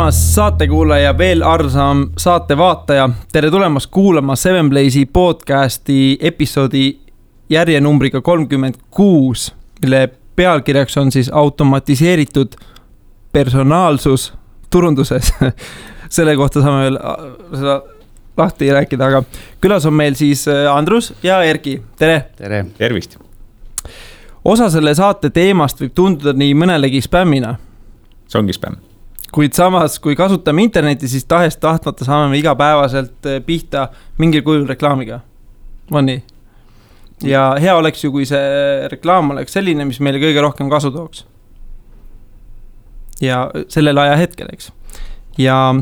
armas saatekuulaja, veel arsam saatevaataja. Tere tulemast kuulama Seven Blaze'i podcasti episoodi järjenumbriga 36, mille pealkirjaks on siis automatiseeritud personaalsus turunduses. Selle kohta saame veel seda lahti rääkida, aga külas on meil siis Andrus ja Erki. Tere! Tere! Tervist! Osa selle saate teemast võib tunduda nii mõnelegi spämmina. See ongi spämm. Kuid samas, kui kasutame interneti, siis tahtmata saame igapäevaselt pihta mingil kujul reklaamiga. On nii? Ja hea oleks ju, kui see reklaam oleks selline, mis meile kõige rohkem kasu tooks. Ja sellel aja hetkel, eks. Ja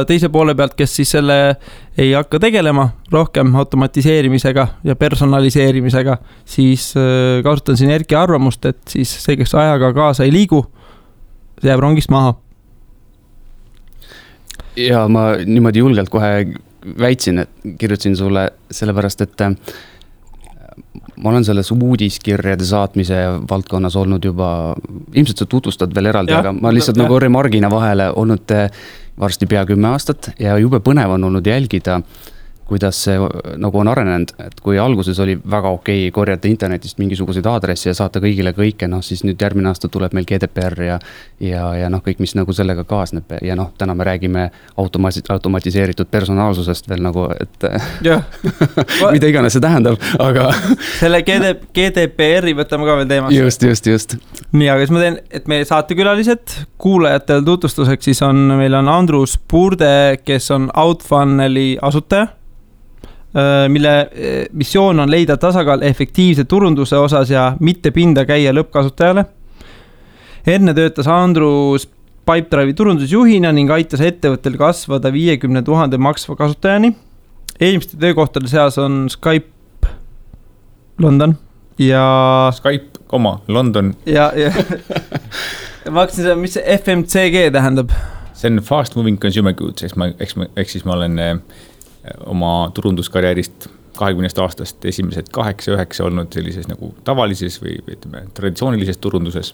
teise poole pealt, kes siis selle ei hakka tegelema rohkem automatiseerimisega ja personaliseerimisega, siis kasutan siin Erki arvamust, et siis see, kes ajaga kaasa ei liigu, see jääb rongist maha. Ja ma niimoodi julgelt kohe väitsin, et kirjutasin sulle sellepärast, et ma olen selles uudiskirjade saatmise valdkonnas olnud juba, ilmselt sa tutvustad veel eraldi, aga ma lihtsalt nagu remargina vahele olnud varsti pea 10 aastat ja jube põnev on olnud jälgida, kuidas see nagu on arenenud, et kui alguses oli väga okei korjata internetist mingisuguseid aadressi ja saata kõigile kõike, siis nüüd järgmine aasta tuleb meil GDPR ja kõik, mis nagu sellega kaasneb ja täna me räägime automatiseeritud personaalsusest veel nagu, et mida iganes see tähendab, aga selle GDPR-i võtame ka veel teemast. Just. Nii, aga siis ma teen, et meie saatekülalised kuulajatel tutvustuseks, siis meil on Andrus Purde, kes on Outfunneli asutaja, mille missioon on leida tasakaal efektiivse turunduse osas ja mitte pinda käia lõppkasutajale. Enne töötas Andrus Pipedrive'i turundusjuhina ning aitas ettevõttel kasvada 50 000 maksva kasutajani. Eelmiste töökohtade seas on Skype London ja Skype, London. Ja ma hakkasin seda, mis see FMCG tähendab? See on Fast Moving Consumer Goods, eks siis ma olen oma turunduskarjäärist 20 aastast esimesed 8-9 olnud sellises nagu tavalises või ütleme, traditsioonilises turunduses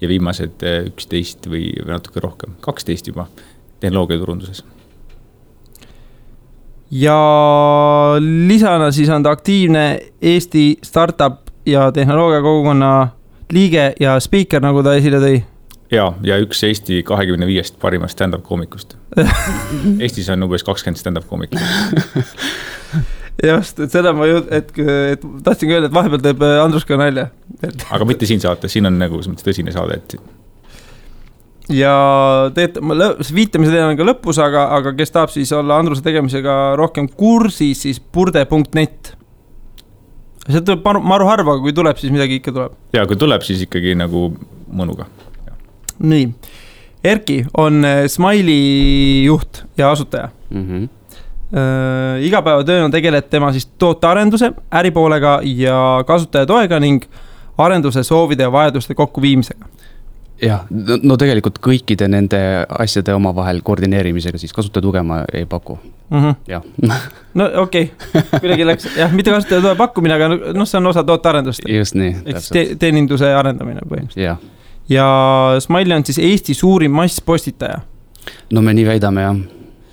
ja viimased 11 või natuke rohkem, 12 juba tehnoloogia turunduses. Ja lisana siis on ta aktiivne Eesti startup ja tehnoloogia kogukonna liige ja speaker, nagu ta esile tõi. Ja üks Eesti 25 parimast stand-up koomikust. Eestis on umbes 20 stand-up koomikust. Just, et seda ma tahtsin öelda, et vahepeal teeb Andrus ka nalja. Aga mitte siin saate, siin on nagu tõsine saade. Ja viitamise teema on ka lõpus, aga kes tahab siis olla Andruse tegemisega rohkem kursis, siis purde.net. See tuleb maru harva, kui tuleb, siis midagi ikka tuleb. Ja kui tuleb, siis ikkagi nagu mõnuga. Nii, Erki on Smiley juht ja asutaja. Igapäevatöön on tegeled tema siis tootearenduse, äripoolega ja kasutajatoega ning arenduse soovide ja vajaduste kokkuviimisega. Ja, no tegelikult kõikide nende asjade omavahel koordineerimisega siis kasutajatuge ma ei paku. Ja. No okei, kuidagi läks, mitte kasutajatuge pakkumine, aga see on osa tootearendust. Just nii. Teeninduse arendamine põhimõtteliselt. Jah. Ja Smiley on siis Eesti suurim masspostitaja. No me nii väidame, jah.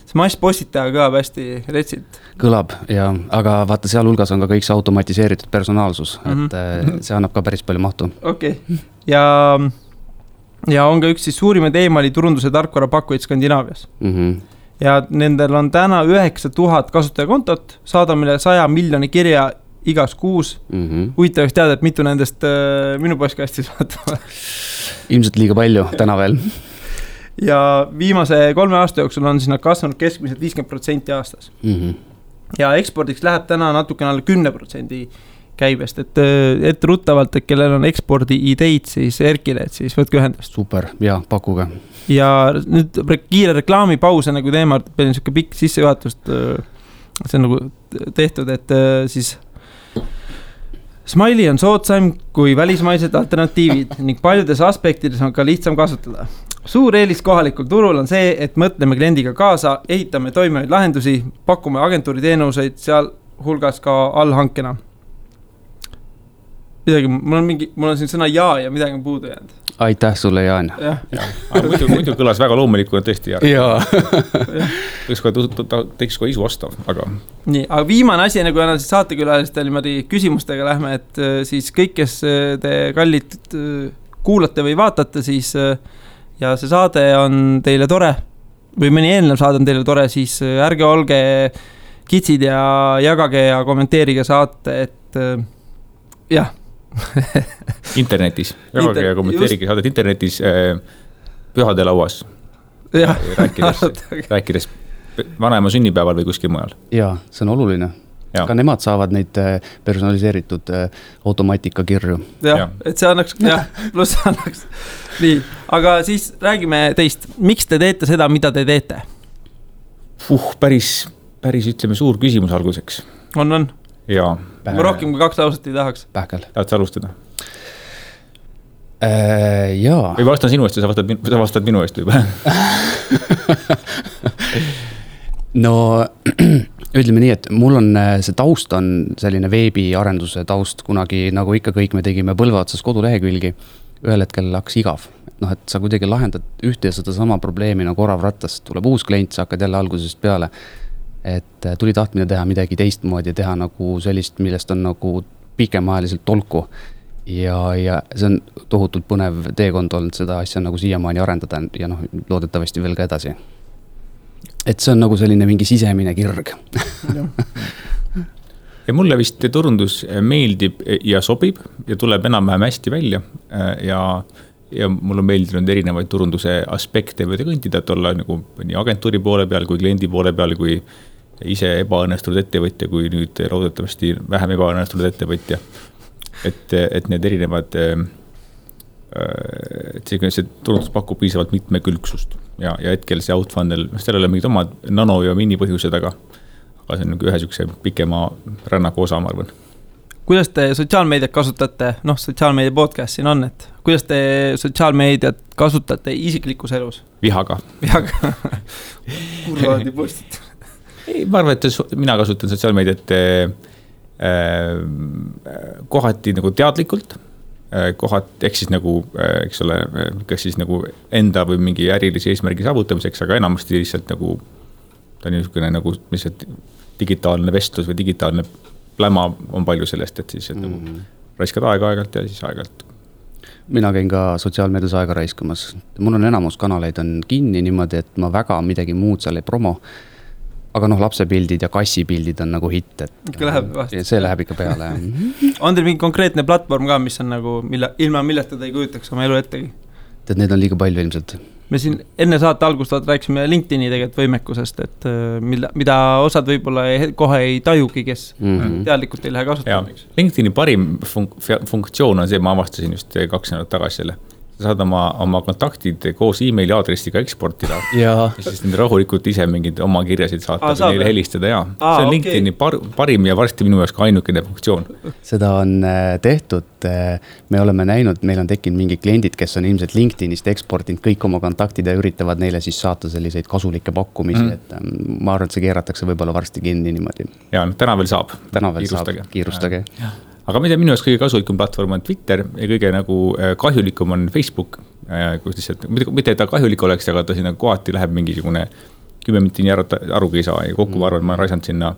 See masspostitaja kõlab hästi retsilt. Kõlab, jah. Aga vaata, seal hulgas on ka kõik see automatiseeritud personaalsus, et see annab ka päris palju mahtu. Okei. Ja on ka üks siis suurimaid e-maili turunduse tarkvara pakkujaid Skandinaavias. Ja nendel on täna 9000 kasutajakontot, saadamine 100 miljoni kirja igas kuus. Huvitavaks teada, et mitu nendest minu postkastis vaatama. Ilmselt liiga palju täna veel. Ja viimase 3 aasta jooksul on siis nad kasvanud keskmiselt 50% aastas. Ja ekspordiks läheb täna natukene alla 10% käibest, et ruttavalt, et kellel on ekspordi ideid siis Erkile, et siis võtke ühendust. Super, ja pakuge. Ja nüüd kiire reklaamipaus, nagu teema, peale niisugune pikk sissejuhatust, see on nagu tehtud, et siis Smiley on soodsaim kui välismaised alternatiivid ning paljudes aspektides on ka lihtsam kasutada. Suur eelis kohalikul turul on see, et mõtleme kliendiga kaasa, ehitame toimivaid lahendusi, pakume agentuuri teenuseid seal hulgas ka allhankena. Midagi, mul on siin sõna ja midagi on puudu jäänud. aitäh sulle, Jaan. Aga muidu kõlas väga loomulikuna tõesti. Jaa. Teeks kohe isu ostav, aga... Nii, aga viimane asi, nagu enam siis saatekülalistel niimoodi küsimustega lähme, et siis kõik, kes te kallid kuulate või vaatate, siis ja see saade on teile tore või mõni eelnev saade on teile tore, siis ärge olge kitsid ja jagage ja kommenteerige saate, et jah. Internetis, jagage ja kommenteerige saadet internetis pühade lauas. Rääkides vanaema sünnipäeval või kuskil mujal. Jaa, see on oluline. Ka nemad saavad neid personaliseeritud automaatika kirju. Jah, et see annaks, pluss annaks. Nii, aga siis räägime teist. Miks te teete seda, mida te teete? Päris ütleme suur küsimus alguseks. On. Jaa. Ma rohkem kui 2 lauset ei tahaks. Pähkel. Tahad sa alustada? Jaa. Või vastan sinu eest ja sa vastad minu eest juba. No, ütleme nii, et mul on see taust on selline veebiarenduse taust, kunagi nagu ikka kõik me tegime põlve otsas kodulehekülgi, ühel hetkel hakkas igav. Et sa kuidagi lahendad ühte ja seda sama probleemi nagu orav rattas, tuleb uus klient, sa hakkad jälle algusest peale. Et tuli tahtmine teha midagi teistmoodi, teha nagu sellist, millest on nagu pikemaajaliselt tolku. Ja see on tohutult põnev teekond olnud seda asja nagu siiamaani arendada ja loodetavasti veel ka edasi. Et see on nagu selline mingi sisemine kirg. Ja mulle vist turundus meeldib ja sobib ja tuleb enam-vähem hästi välja ja mul on meeldinud erinevaid turunduse aspekte võida kõntida, et olla nagu nii agentuuri poole peal kui kliendi poole peal, kui ise ebaõnnestunud ettevõtja, kui nüüd loodetavasti vähem ebaõnnestunud ettevõtja. Et need erinevad, et see turundus pakub piisavalt mitmekülgsust ja hetkel see outfunnel, seal ei ole mingid omad nano- ja minipõhjused, aga see on ühe sükse pikema rännaku osa, ma arvan. Kuidas te sotsiaalmeediat kasutate, sotsiaalmeedia podcast siin on, et kuidas te sotsiaalmeediat kasutate isiklikus elus? Vihaga. Kurvaadi postit. Ei, ma arvan, et mina kasutan sotsiaalmeediat kohati nagu teadlikult, ehk siis nagu, eks ole, kas siis nagu enda või mingi ärilise eesmärgi saavutamiseks, aga enamasti lihtsalt nagu ta on niisugune nagu lihtsalt digitaalne vestlus või digitaalne pläma on palju sellest, et siis nagu raiskad aeg-aegalt ja siis aegalt. Mina käin ka sotsiaalmeedias aega raiskamas. Mul on enamus kanaleid on kinni niimoodi, et ma väga midagi muud seal ei promo. Aga lapsepildid ja kassipildid on nagu hitt, et see läheb ikka peale. On teil mingi konkreetne platvorm ka, mis on nagu, ilma millest te ei kujutaks oma elu ettegi? Et need on liiga palju ilmselt. Me siin enne saate algust rääksime LinkedIni tegelikult võimekusest, et mida osad võib-olla kohe ei tajugi, kes teadlikult ei lähe kasutama. LinkedIni parim funktsioon on see, ma avastasin just 2 nädalat tagasi selle. Sa saad oma kontaktid koos emaili aadressiga eksportida ja siis nende rahulikult ise mingid oma kirjasid saata või neile helistada. See on LinkedIni parim ja varsti minu jaoks ka ainukene funktsioon. Seda on tehtud, me oleme näinud, meil on tekkinud mingi kliendid, kes on ilmselt LinkedInist eksportinud kõik oma kontaktid ja üritavad neile siis saata selliseid kasulikke pakkumisi, et ma arvan, et see keeratakse võib-olla varsti kinni niimoodi. Ja, täna veel saab. Kiirustage. Aga minu jaoks kõige kasulikum platvorm on Twitter ja kõige nagu kahjulikum on Facebook, kus lihtsalt, mitte et ta kahjulik oleks, aga ta sinna kohati läheb mingisugune 10 minutit arugi ei saa ja kokku ma arvan, ma raisanud sinna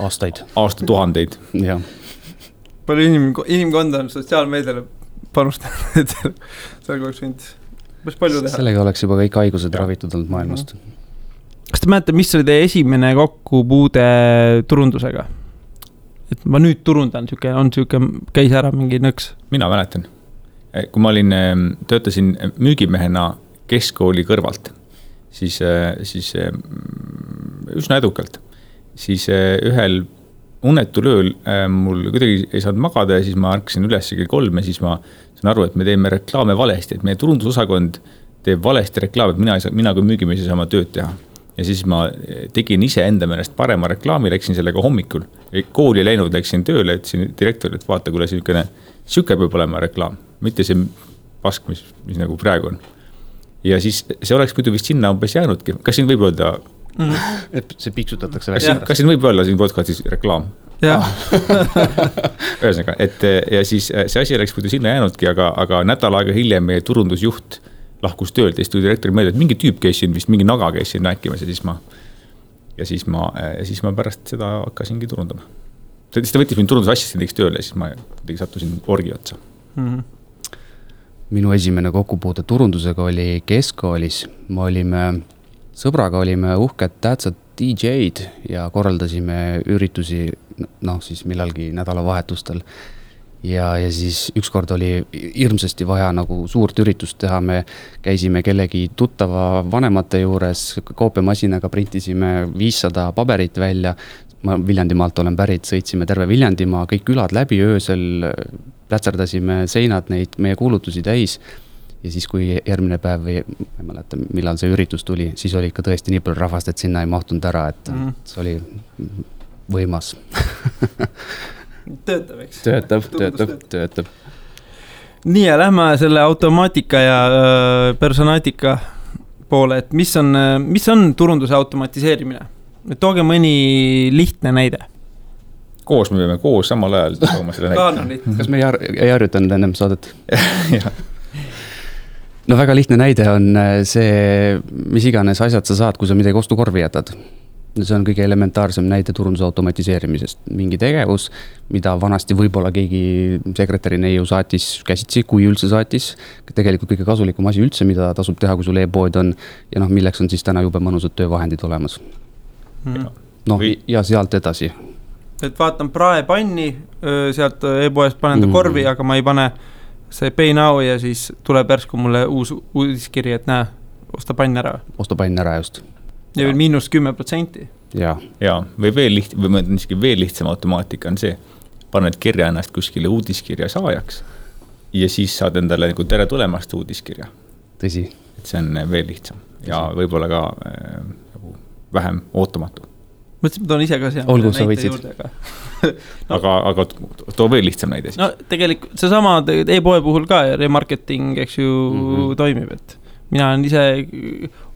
aastatuhandeid. Ja. Palju inimkonda on sotsiaalmeediale panustanud, et seal oleks võinud päris palju teha. Sellega oleks juba kõik haigused ravitud olnud maailmast. Kas te mäletate, mis oli teie esimene kokkupuude turundusega? Et ma nüüd turundan, käis ära mingi nõks. Mina mäletan. Kui ma töötasin müügimehena keskkooli kõrvalt, siis üsna edukalt. Siis ühel unetul ööl mul kuidagi ei saanud magada ja siis ma ärkasin üles kell 3 ja siis ma saan aru, et me teeme reklaame valesti, et meie turundusosakond teeb valesti reklaame, et mina kui müügimees ei saa oma tööd teha. Ja siis ma tegin ise enda meelest parema reklaami, läksin sellega hommikul. Kooli läinud, läksin tööle, ütlesin direktorile, et vaata, kuule siuke peab olema reklaam, mitte see pask, mis nagu praegu on. Ja siis see oleks muidu vist sinna umbes jäänudki. Kas siin võib öelda... Et see piksutatakse välja. Kas siin võib olla siin podcastis reklaam? Ühesõnaga, et ja siis see asi oleks muidu sinna jäänudki, aga nädal aega hiljem meie turundusjuht lahkus töölt ja siis tuli direktori meelde, et mingi tüüp käis siin vist, mingi naga käis siin rääkimas ja siis ma pärast seda hakkasingi turundama. Siis ta võttis mind turundusassistendiks tööle ja siis ma sattusin orgi otsa. Minu esimene kokkupuude turundusega oli keskkoolis. Sõbraga olime uhked tähtsad DJ-d ja korraldasime üritusi siis millalgi nädalavahetustel. Ja siis ükskord oli hirmsasti vaja nagu suurt üritust teha, me käisime kellegi tuttava vanemate juures, koopiamasinaga printisime 500 paberit välja, ma Viljandimaalt olen pärit, sõitsime terve Viljandimaa, kõik külad läbi öösel, plätserdasime seinad neid meie kuulutusi täis ja siis kui järgmine päev või ma ei mäleta, millal see üritus tuli, siis oli ikka tõesti nii palju rahvast, et sinna ei mahtunud ära, et see oli võimas. Töötab, eks? Töötab. Nii ja lähme selle automaatika ja personaatika poole, et mis on turunduse automatiseerimine? Tooge mõni lihtne näide. Koos me peame koos samal ajal tooma selle näite. Kas me ei harjutanud ennem saadet? No väga lihtne näide on see, mis iganes asjad sa saad, kui sa midagi ostukorvi jätad. See on kõige elementaarsem näide turunduse automatiseerimisest. Mingi tegevus, mida vanasti võib-olla keegi sekretäri neiu saatis käsitsi, kui üldse saatis. Tegelikult kõige kasulikum asi üldse, mida tasub teha, kui sul e-pood on ja milleks on siis täna jube mõnusad töövahendid olemas. Ja sealt edasi. Et vaatan praepanni, sealt e-poest panen ta korvi, aga ma ei pane see pay now ja siis tuleb järsku mulle uus uudiskiri, et näe, osta pann ära. Osta pann ära just. Ja veel -10%. Ja, või veel lihtsam automaatika on see, paned kirja ennast kuskile uudiskirja saajaks ja siis saad endale nagu tere tulemast uudiskirja. Tõsi. Et see on veel lihtsam ja võib-olla ka vähem ootamatu. Mõtlesin, ma toon ise ka siia. Olgu, sa võitsid. Aga too veel lihtsam näide siis. No tegelikult see sama e-poe puhul ka remarketing, eks ju, toimib, et mina olen ise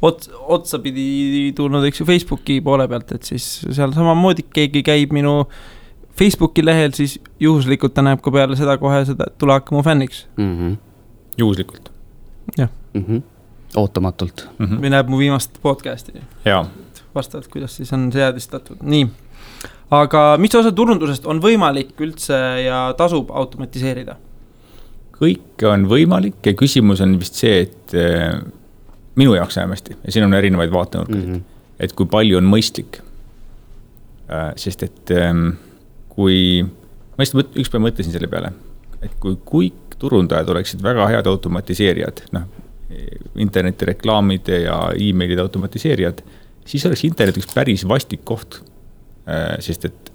otsapidi tulnud, eks ju, Facebooki poole pealt, et siis seal samamoodi keegi käib minu Facebooki lehel, siis juhuslikult ta näeb ka peale seda kohe seda, et tule hakka mu fänniks. Juhuslikult. Jah. Ootamatult. Või näeb mu viimast podcasti. Jaa. Vastavalt, kuidas siis on seadistatud. Nii. Aga mis osa turundusest on võimalik üldse ja tasub automatiseerida? Kõik on võimalik ja küsimus on vist see, et minu jaoks vähemasti, ja siin on erinevaid vaatenurkasid, et kui palju on mõistlik. Sest et kui, ma ükspäev mõtlesin selle peale, et kui kõik turundajad oleksid väga head automatiseerijad, internetireklaamide ja e-mailide automatiseerijad, siis oleks internet üks päris vastik koht, sest et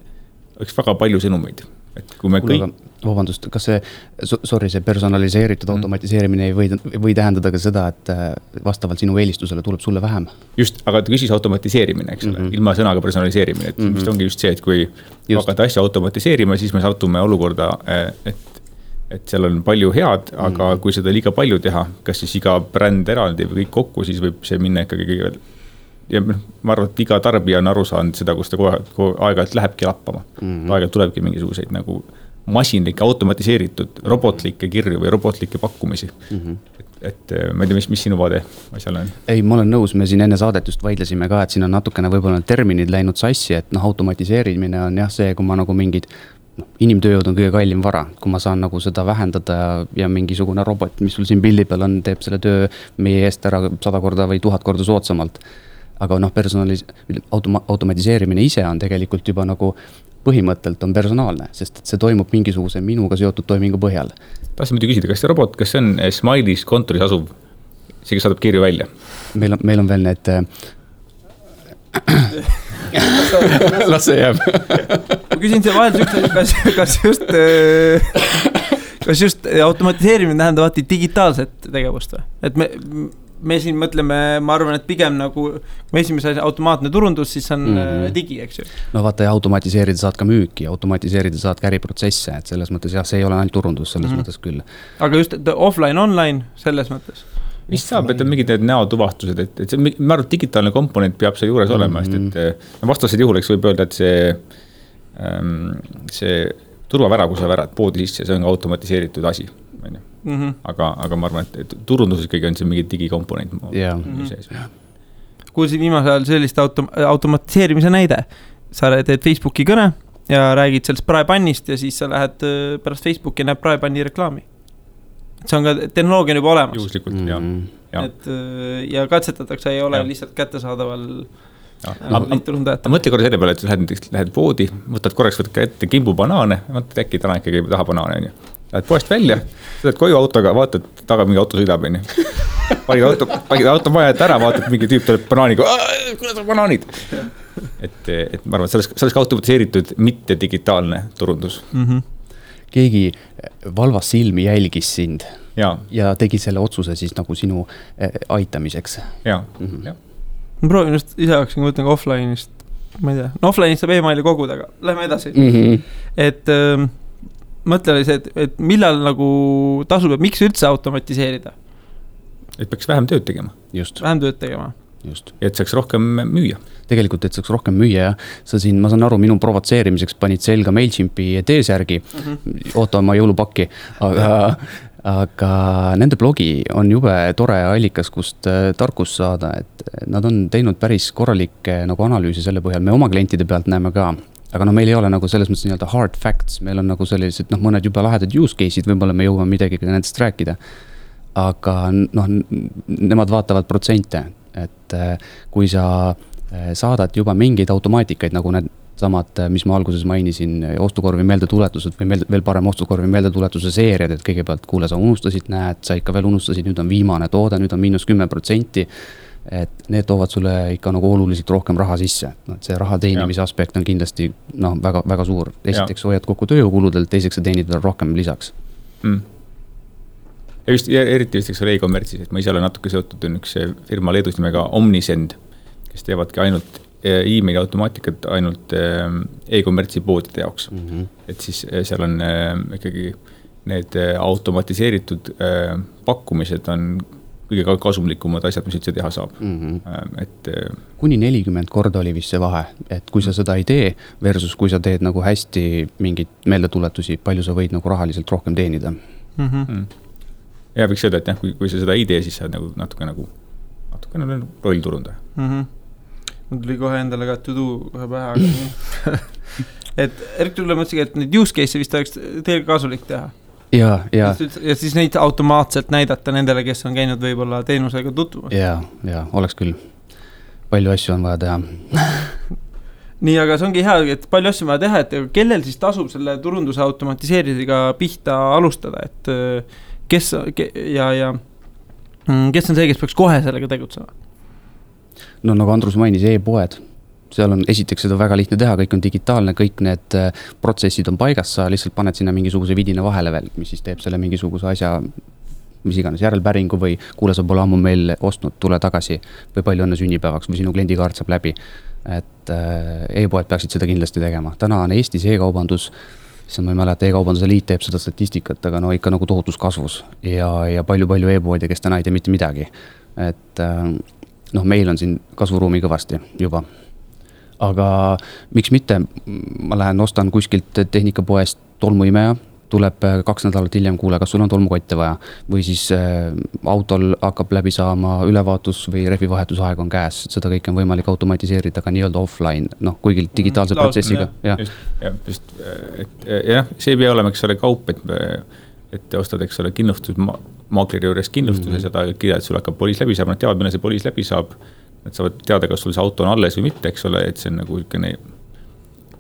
oleks väga palju sõnumeid. Et kui me kõik... Vabandust, kas see personaliseeritud automatiseerimine ei või tähendada ka seda, et vastavalt sinu eelistusele tuleb sulle vähem? Just, aga küsis automatiseerimine, eks ole, ilma sõnaga personaliseerimine, et vist ongi just see, et kui hakata asja automatiseerima, siis me satume olukorda, et seal on palju head, aga kui seda liiga palju teha, kas siis iga bränd eraldi või kõik kokku, siis võib see minna ikkagi ja ma arvan, et iga tarbija on aru saanud seda, kus ta aeg-ajalt lähebki lappama. Aeg-ajalt tulebki mingisuguseid nagu masinlikke, automatiseeritud, robotlikke kirju või robotlikke pakkumisi. Et ma ei tea, mis sinu vaade asjal on? Ei, ma olen nõus, me siin enne saadet just vaidlesime ka, et siin on natukene võib-olla terminid läinud sassi, et automatiseerimine on jah see, kui ma nagu mingid inimtööjõud on kõige kallim vara, kui ma saan nagu seda vähendada ja mingisugune robot, mis sul siin pildi peal on, teeb selle töö meie eest ära 100 korda või 1000 korda soodsamalt. Aga automatiseerimine ise on tegelikult juba nagu põhimõttelt on personaalne, sest see toimub mingisuguse minuga seotud toimingu põhjal. Tahtsin muidu küsida, kas see robot, kas see on Smileys kontoris asuv, see, kes saadab kirju välja? Meil on veel need... Las see jääb. Ma küsin see vahel, kas just automatiseerimine tähendab digitaalset tegevust või? Et me siin mõtleme, ma arvan, et pigem nagu esimese automaatne turundus, siis on digi, eks ju. No vaata, ja automatiseerida saad ka müüki, automatiseerida saad ka äriprotsesse, et selles mõttes jah, see ei ole ainult turundus, selles mõttes küll. Aga just offline-online selles mõttes? Mis saab, et on mingid näotuvastused, et see, ma arvan, digitaalne komponent peab see juures olema, sest et vastased juhul, eks võib öelda, et see see turvavära, kui sa värad poodi sisse, see on automatiseeritud asi. Aga ma arvan, et turunduses kõige on see mingi digikomponent sees. Kuulsin viimasel ajal sellist automatiseerimise näide. Sa teed Facebooki kõne ja räägid sellest praepannist ja siis sa lähed pärast Facebooki ja näeb praepanni reklaami. See on ka tehnoloogia juba olemas. Juhuslikult, ja katsetatakse, ei ole lihtsalt kättesaadaval mõtle korra selle peale, et lähed poodi, võtad ette kimbu banaane, mõtled äkki täna ikkagi taha banaane, lähed poest välja, sõidad koju autoga, vaatad taga mingi auto sõidab, panid auto maja ette ära, vaatad mingi tüüp tuleb banaaniga, kuidas on banaanid? Et ma arvan, et sellest automatiseeritud mitte digitaalne turundus. Keegi valvas silmi jälgis sind ja tegi selle otsuse siis nagu sinu aitamiseks. Ma proovin just ise hakkasin, kui võtan ka offline'ist, ma ei tea, offline'ist saab e-maili koguda, aga lähme edasi. Et mõtle oli see, et millal nagu tasub, et miks üldse automatiseerida? Et peaks vähem tööd tegema. Vähem tööd tegema. Et saaks rohkem müüa. Tegelikult, et saaks rohkem müüa, sa siin, ma saan aru, minu provotseerimiseks panid selga MailChimpi T-särgi, oota oma jõulupakki, aga nende blogi on jube tore allikas, kust tarkus saada, et nad on teinud päris korralikke nagu analüüsi selle põhjal, me oma klientide pealt näeme ka, aga meil ei ole nagu selles mõttes nii-öelda hard facts, meil on nagu sellised mõned juba lahedad use case'id, võib-olla me jõuame midagi nendest rääkida, aga nemad vaatavad protsente, et kui sa saadad juba mingeid automaatikaid, nagu need samad, mis ma alguses mainisin, ostukorvi meeldetuletused või veel parem ostukorvi meeldetuletuse seeriad, et kõigepealt kuule, sa unustasid, näed, sa ikka veel unustasid, nüüd on viimane toode, nüüd on -10%, et need toovad sulle ikka nagu oluliselt rohkem raha sisse. See raha teenimise aspekt on kindlasti väga, väga suur. Esiteks hoiad kokku tööjõukuludelt, teiseks sa teenid veel rohkem lisaks. Ja eriti vist e-kommertsis, et ma ise olen natuke seotud üks firma Leedus nimega Omnisend, kes teevadki ainult e-maili automaatikat ainult e-kommertsi poodide jaoks. Et siis seal on ikkagi need automatiseeritud pakkumised on kõige kasumlikumad asjad, mis üldse teha saab. Kuni 40 korda oli vist see vahe, et kui sa seda ei tee versus kui sa teed nagu hästi mingid meeldetuletusi, palju sa võid nagu rahaliselt rohkem teenida. Ja võiks öelda, et kui sa seda ei tee, siis sa natuke rollturunda. Mul tuli kohe endale ka to do kohe pähe. Et Erik tuli mõtlesin, et need use case'e vist oleks teil kasulik teha. Ja siis neid automaatselt näidata nendele, kes on käinud võib-olla teenusega tutvumas. Ja, oleks küll. Palju asju on vaja teha. Nii, aga see ongi hea, et palju asju on vaja teha, et kellel siis tasub selle turunduse automatiseerimisega pihta alustada, et kes on see, kes peaks kohe sellega tegutsema? No nagu Andrus mainis, e-poed. Seal on esiteks seda väga lihtne teha, kõik on digitaalne, kõik need protsessid on paigas, sa lihtsalt paned sinna mingisuguse vidina vahele veel, mis siis teeb selle mingisuguse asja, mis iganes järelpäringu või kuule, sa pole ammu meil ostnud, tule tagasi või palju õnne sünnipäevaks või sinu kliendikaart saab läbi. Et e-poed peaksid seda kindlasti tegema. Täna on Eestis e-kaubandus, siis ma ei mäleta, e-kaubanduse liit teeb seda statistikat, aga ikka nagu tohutus kasvus ja palju e-poodi, kes täna ei tee mitte midagi. Et meil on siin kasvuruumi kõvasti juba. Aga miks mitte, ma lähen ostan kuskilt tehnikapoest tolmuimeja, tuleb 2 nädalat hiljem, kuule, kas sul on tolmukotte vaja või siis autol hakkab läbi saama ülevaatus või rehvivahetusaeg on käes, seda kõik on võimalik automatiseerida ka nii-öelda offline, kuigi digitaalse protsessiga. See ei pea olema, eks ole, kaup, et ostad, eks ole, kindlustusmaakleri juures kindlustuse, seda kirja, et sul hakkab poliis läbi saab, nad teavad, mille see poliis läbi saab, nad saavad teada, kas sul see auto on alles või mitte, eks ole, et see on nagu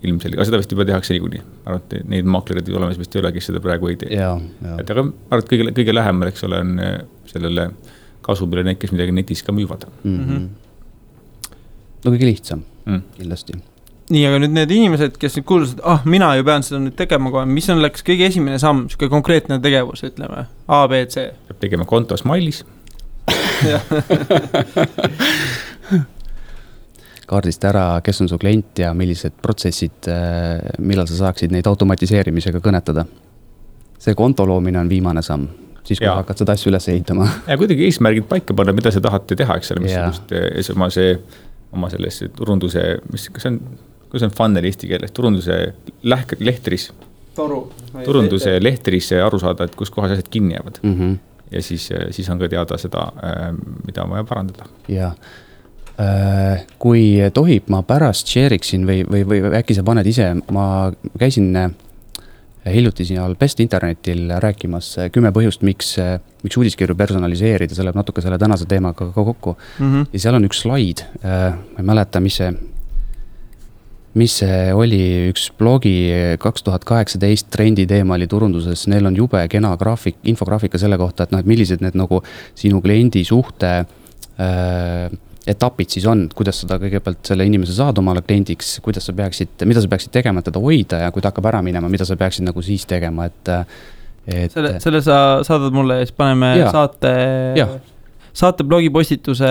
ilmselge, aga seda vist juba tehakse niikuinii. Arvate, neid maaklerid olemas vist ei ole, kes seda praegu ei tee. Et aga arvate, kõige lähemal, eks ole, on sellele kasumile need, kes midagi netis ka müüvad. No kõige lihtsam, kindlasti. Nii, aga nüüd need inimesed, kes nüüd kuulsid, et mina ju pean seda nüüd tegema kohe, mis on läks kõige esimene samm, siuke konkreetne tegevus, ütleme, A, B, C. Peab tegema konto Smile'is. Kaardist ära, kes on su klient ja millised protsessid, millal sa saaksid neid automatiseerimisega kõnetada. See konto loomine on viimane samm, siis kui hakkad seda asju üles ehitama. Ja kuidagi eesmärgid paika panna, mida sa tahate teha, eks ole, mis oma selles turunduse, kas on kuidas on funnel eesti keeles, turunduse lehtris. Turunduse lehtris aru saada, et kus kohas asjad kinni jäävad. Ja siis on ka teada seda, mida on vaja parandada. Jaa. Kui tohib, ma pärast share'iksin või äkki sa paned ise, ma käisin hiljuti siin Best Internetil rääkimas 10 põhjust, miks uudiskirju personaliseerida, see läheb natuke selle tänase teemaga ka kokku. Ja seal on üks slaid, ma ei mäleta, mis see oli, üks blogi 2018 trendi teema oli turunduses, neil on jube kena infograafika selle kohta, et millised need nagu sinu kliendi suhte etapid siis on, kuidas seda kõigepealt selle inimese saad omale kliendiks, mida sa peaksid tegema, et teda hoida ja kui ta hakkab ära minema, mida sa peaksid nagu siis tegema, et selle sa saadad mulle ja siis paneme saate blogipostituse,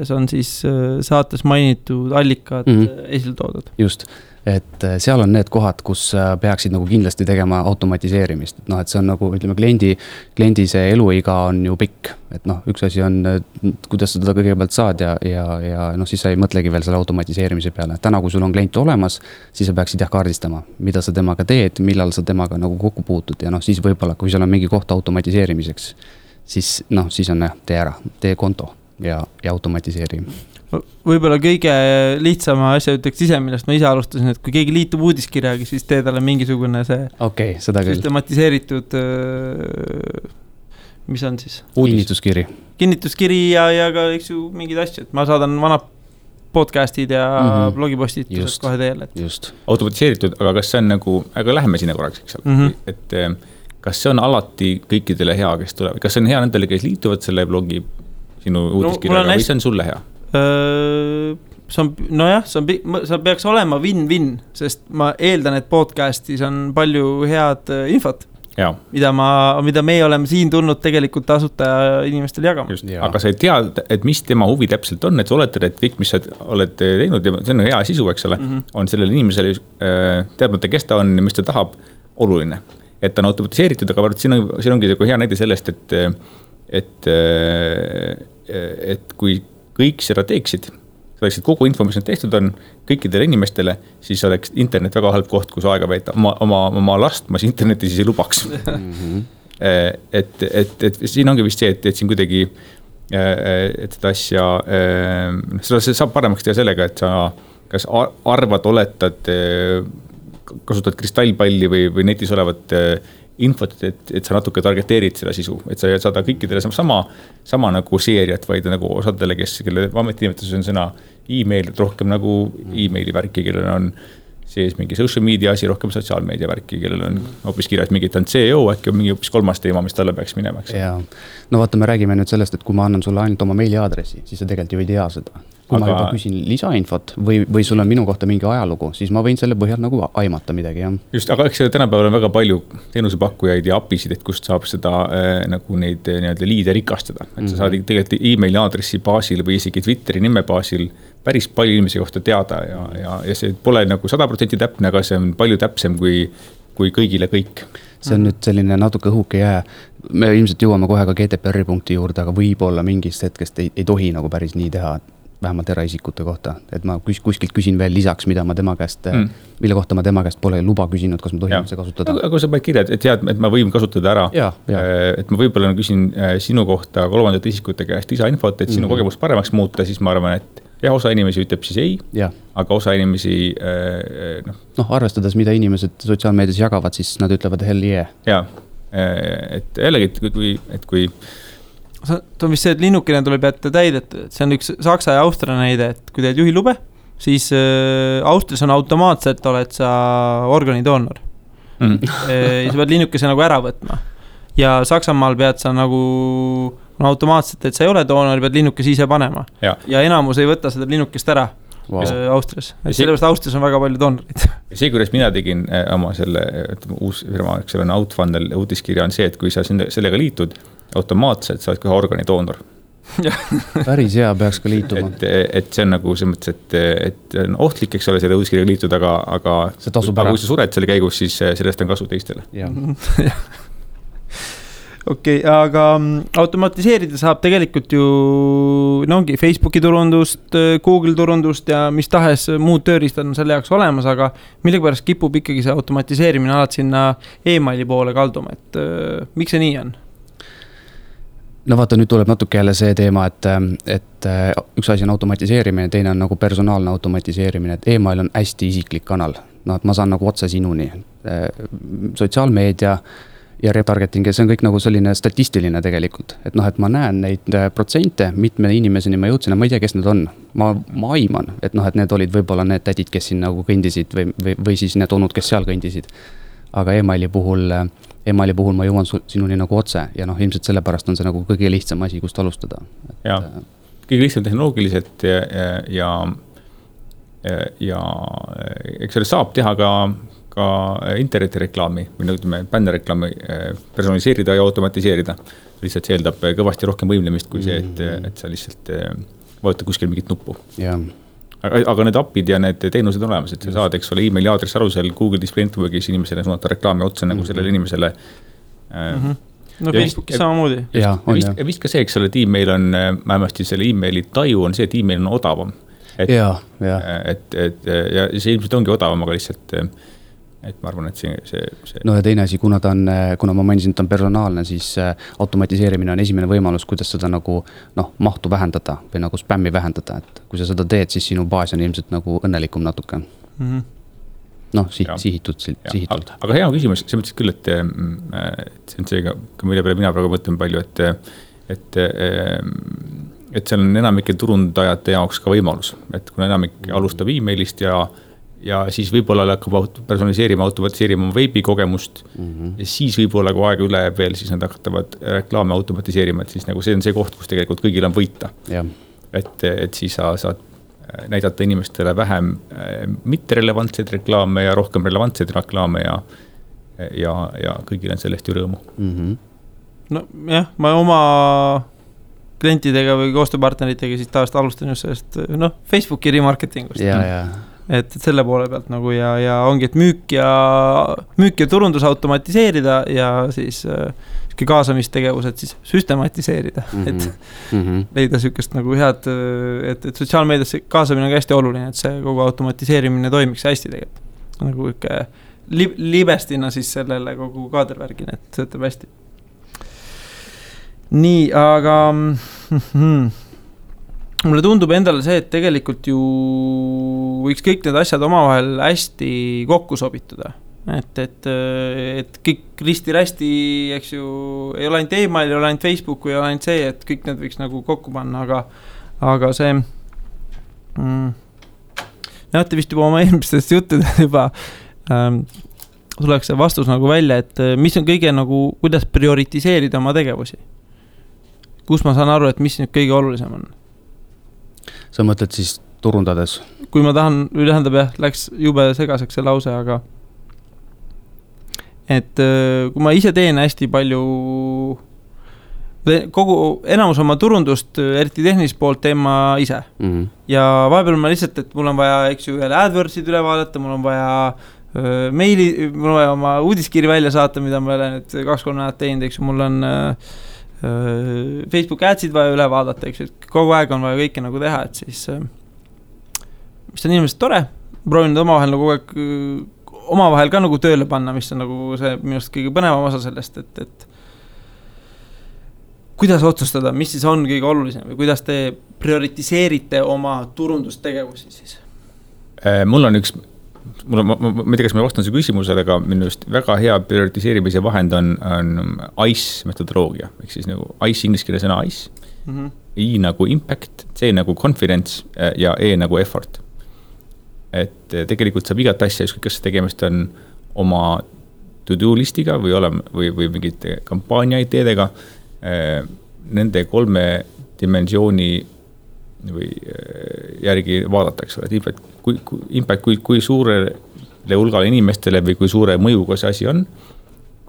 see on siis saates mainitud allikad esile toodud. Just, et seal on need kohad, kus peaksid nagu kindlasti tegema automatiseerimist. Et see on nagu, ütleme, kliendi see eluiga on ju pikk. Et üks asi on, kuidas sa teda kõigepealt saad ja siis sa ei mõtlegi veel selle automatiseerimise peale. Täna, kui sul on klient olemas, siis sa peaksid kaardistama, mida sa temaga teed, millal sa temaga nagu kokku puutud ja siis võib-olla, kui seal on mingi koht automatiseerimiseks, siis on tee konto ja automatiseeri. Võib-olla kõige lihtsama asja ütleks ise, millest ma ise alustasin, et kui keegi liitub uudiskirjaga, siis tee talle mingisugune see seda küll. Süstematiseeritud, mis on siis? Kinnituskiri ja ka eks ju mingid asjad. Ma saadan vanad podcastid ja blogipostitused kohe teele. Just. Automatiseeritud, aga kas see on nagu, aga läheme sinna korraks, eks ole, et kas see on alati kõikidele hea, kes tulevad? Kas see on hea nendele, kes liituvad selle blogi sinu uudiskirjaga või see on sulle hea? See peaks olema win-win, sest ma eeldan, et podcastis on palju head infot, mida me oleme siin tulnud tegelikult asutaja inimestele jagama. Aga sa ei tea, et mis tema huvi täpselt on, et sa oletad, et kõik, mis sa oled teinud, ja see on hea sisu, eks ole, on sellele inimesele teadmata, kes ta on ja mis ta tahab, oluline. Et ta on automatiseeritud, aga siin ongi hea näide sellest, et kui kõik seda teeksid, selleks, et kogu info, mis on tehtud on kõikidele inimestele, siis oleks internet väga halb koht, kus aega veeta. Oma last ma internetis siis ei lubaks. et siin ongi vist see, et siin kuidagi et seda asja seda saab paremaks teha sellega, et sa kas arvad, oletad, kasutad kristallpalli või netis olevat infot, et sa natuke targeteerid seda sisu, et sa ei saada kõikidele sama nagu seeriat, vaid nagu osadele, kelle ametinimetuses on sõna e-mail, rohkem nagu e-maili värki, kellel on sees mingi social media asi, rohkem sotsiaalmeedia värki, kellel on hoopis kirjas mingi, et on CEO, äkki on mingi hoopis kolmas teema, mis talle peaks minema. No vaata, me räägime nüüd sellest, et kui ma annan sulle ainult oma meiliaadressi, siis sa tegelikult ju ei tea seda. Kui ma juba küsin lisainfot või sul on minu kohta mingi ajalugu, siis ma võin selle põhjal nagu aimata midagi. Just, aga eks tänapäeval on väga palju teenusepakkujaid ja apisid, et kust saab seda nagu neid liide rikastada. Et sa saad tegelikult e-maili aadressi baasil või isegi Twitteri nime baasil päris palju inimese kohta teada ja see pole nagu 100% täpne, aga see on palju täpsem kui kõigile kõik. See on nüüd selline natuke õhuke jää. Me ilmselt jõuame kohe ka GDPR punkti juurde, aga võib-olla mingist hetkest ei tohi nagu päris nii teha, vähemalt eraisikute kohta, et ma kuskilt küsin veel lisaks, mille kohta ma tema käest pole luba küsinud, kas ma tohin see kasutada. Aga sa paned kirja, et tead, et ma võin kasutada ära, et ma võib-olla küsin sinu kohta kolmandate isikute käest lisainfot, et sinu kogemust paremaks muuta, siis ma arvan, et osa inimesi ütleb siis ei, aga osa inimesi arvestades, mida inimesed sotsiaalmeedias jagavad, siis nad ütlevad hell yeah. Et jällegi, kui see on vist see, et linnukene tuleb jätta täidetud, et see on üks Saksa ja Austria näide, et kui teed juhilube, siis Austrias on automaatselt, oled sa organidoonor. Ja sa pead linnukese nagu ära võtma. Ja Saksamaal pead sa nagu automaatselt, et sa ei ole doonor, pead linnukese ise panema. Ja enamus ei võta seda linnukest ära Austrias. Sellepärast Austrias on väga palju doonorid. See, kuidas mina tegin oma selle uus firma, eks selle Outfunnel uutiskirja on see, et kui sa sellega liitud, automaatselt sa oled kohe organidoonor. Päris hea peaks ka liituma. Et see on nagu see mõttes, et on ohtlik, eks ole, selle uudiskirjaga liitud, aga kui sa sured selle käigus, siis sellest on kasu teistele. Okei, aga automatiseerida saab tegelikult ju ongi Facebooki turundust, Google turundust ja mis tahes muud tööriistad on selle jaoks olemas, aga millegipärast kipub ikkagi see automatiseerimine alati sinna e-maili poole kalduma, et miks see nii on? No vaata, nüüd tuleb natuke jälle see teema, et üks asi on automatiseerimine, teine on nagu personaalne automatiseerimine, et e-mail on hästi isiklik kanal. No, et ma saan nagu otse sinuni. Sotsiaalmeedia ja retargeting, see on kõik nagu selline statistiline tegelikult. Et noh, et ma näen neid protsente, mitme inimeseni ma jõudsin ja ma ei tea, kes need on. Ma aiman, et noh, et need olid võib-olla need tädid, kes siin nagu kõndisid või siis need onud, kes seal kõndisid. Aga e-maili puhul ma jõuan sinuni nagu otse ja noh, ilmselt sellepärast on see nagu kõige lihtsam asi, kust alustada. Ja, kõige lihtsam tehnoloogiliselt ja eks selle saab teha ka internetireklaami või ütleme bännereklaami personaliseerida ja automatiseerida. Lihtsalt see eeldab kõvasti rohkem võimlemist kui see, et sa lihtsalt vajuta kuskil mingit nuppu. Ja. Aga need appid ja need teenused on olemas, et sa saad, eks ole, e-maili aadressi alusel Google Display Networkis inimesele suunata reklaami otsa nagu sellele inimesele. No Facebookis samamoodi. Ja vist ka see, eks ole, et e-mail on, vähemasti selle e-maili taju on see, et e-mail on odavam. Ja see ilmselt ongi odavam, aga lihtsalt et ma arvan, et see... No ja teine asi, kuna ma mainisin, et on personaalne, siis automatiseerimine on esimene võimalus, kuidas seda nagu mahtu vähendada või nagu spämmi vähendada, et kui sa seda teed, siis sinu baas on ilmselt nagu õnnelikum natuke. Sihitult. Aga hea küsimus, see mõtles küll, et see on seega, mille peale mina praegu mõtlen palju, et seal on enamike turundajate jaoks ka võimalus, et kuna enamik alustab e-mailist ja siis võib-olla hakkab personaliseerima, automatiseerima veebikogemust ja siis võib-olla kui aega üle veel, siis nad hakkavad reklaame automatiseerima, et siis nagu see on see koht, kus tegelikult kõigil on võita. Et siis sa saad näidata inimestele vähem mitterelevantseid reklaame ja rohkem relevantseid reklaame ja kõigil on sellest ju rõõmu. No jah, ma oma klientidega või koostööpartneritega siis taast alustan just sellest Facebooki remarketingust. Et selle poole pealt nagu ja ongi, et müük ja turundus automatiseerida ja siis kaasamistegevused siis süstematiseerida, et leida sükest nagu head, et sotsiaalmeediasse kaasamine on hästi oluline, et see kogu automatiseerimine toimiks hästi tegelikult. Nagu ikka libestina siis sellele kogu kaadervärgin, et see ütleb hästi. Nii, aga... Mulle tundub endale see, et tegelikult ju võiks kõik need asjad omavahel hästi kokku sobitada. Et kõik risti-rästi, eks ju, ei ole ainult e-mail, ei ole ainult Facebook, ei ole ainult see, et kõik need võiks nagu kokku panna, aga see näete vist juba oma eelmistest juttudest juba tuleks see vastus nagu välja, et mis on kõige nagu, kuidas prioritiseerida oma tegevusi. Kus ma saan aru, et mis nüüd kõige olulisem on? Sa mõtled siis turundades? Kui ma tahan, läks jube segaseks see lause, aga et kui ma ise teen hästi palju kogu enamus oma turundust, eriti tehnilist poolt teen ma ise. Ja vahepeal ma lihtsalt, et mul on vaja, eks ju, AdWordsid üle vaadata, mul on vaja meili, mul on vaja oma uudiskiri välja saata, mida ma olen nüüd 2-3 näedat teinud, eks ju, mul on Facebook adsid vaja üle vaadata, eks ju, kogu aeg on vaja kõike nagu teha, et siis mis on inimesed tore, proovin omavahel nagu kogu aeg omavahel ka nagu tööle panna, mis on nagu see minust kõige põnevam osa sellest, et kuidas otsustada, mis siis on kõige olulisem või kuidas te prioritiseerite oma turundustegevusi siis? Mul on üks ma ei tea, kas ma vastan see küsimusele, aga minu just väga hea prioritiseerimise vahend on ICE metodoloogia, ehk siis nagu ICE inglise keele sõna ICE, I nagu impact, C nagu confidence ja E nagu effort. Et tegelikult saab igat asja, kas tegemist on oma to-do listiga või mingite kampaania-ideedega, nende 3 dimensiooni või järgi vaadatakse, et impact kui suurele hulgale inimestele või kui suure mõjuga see asi on,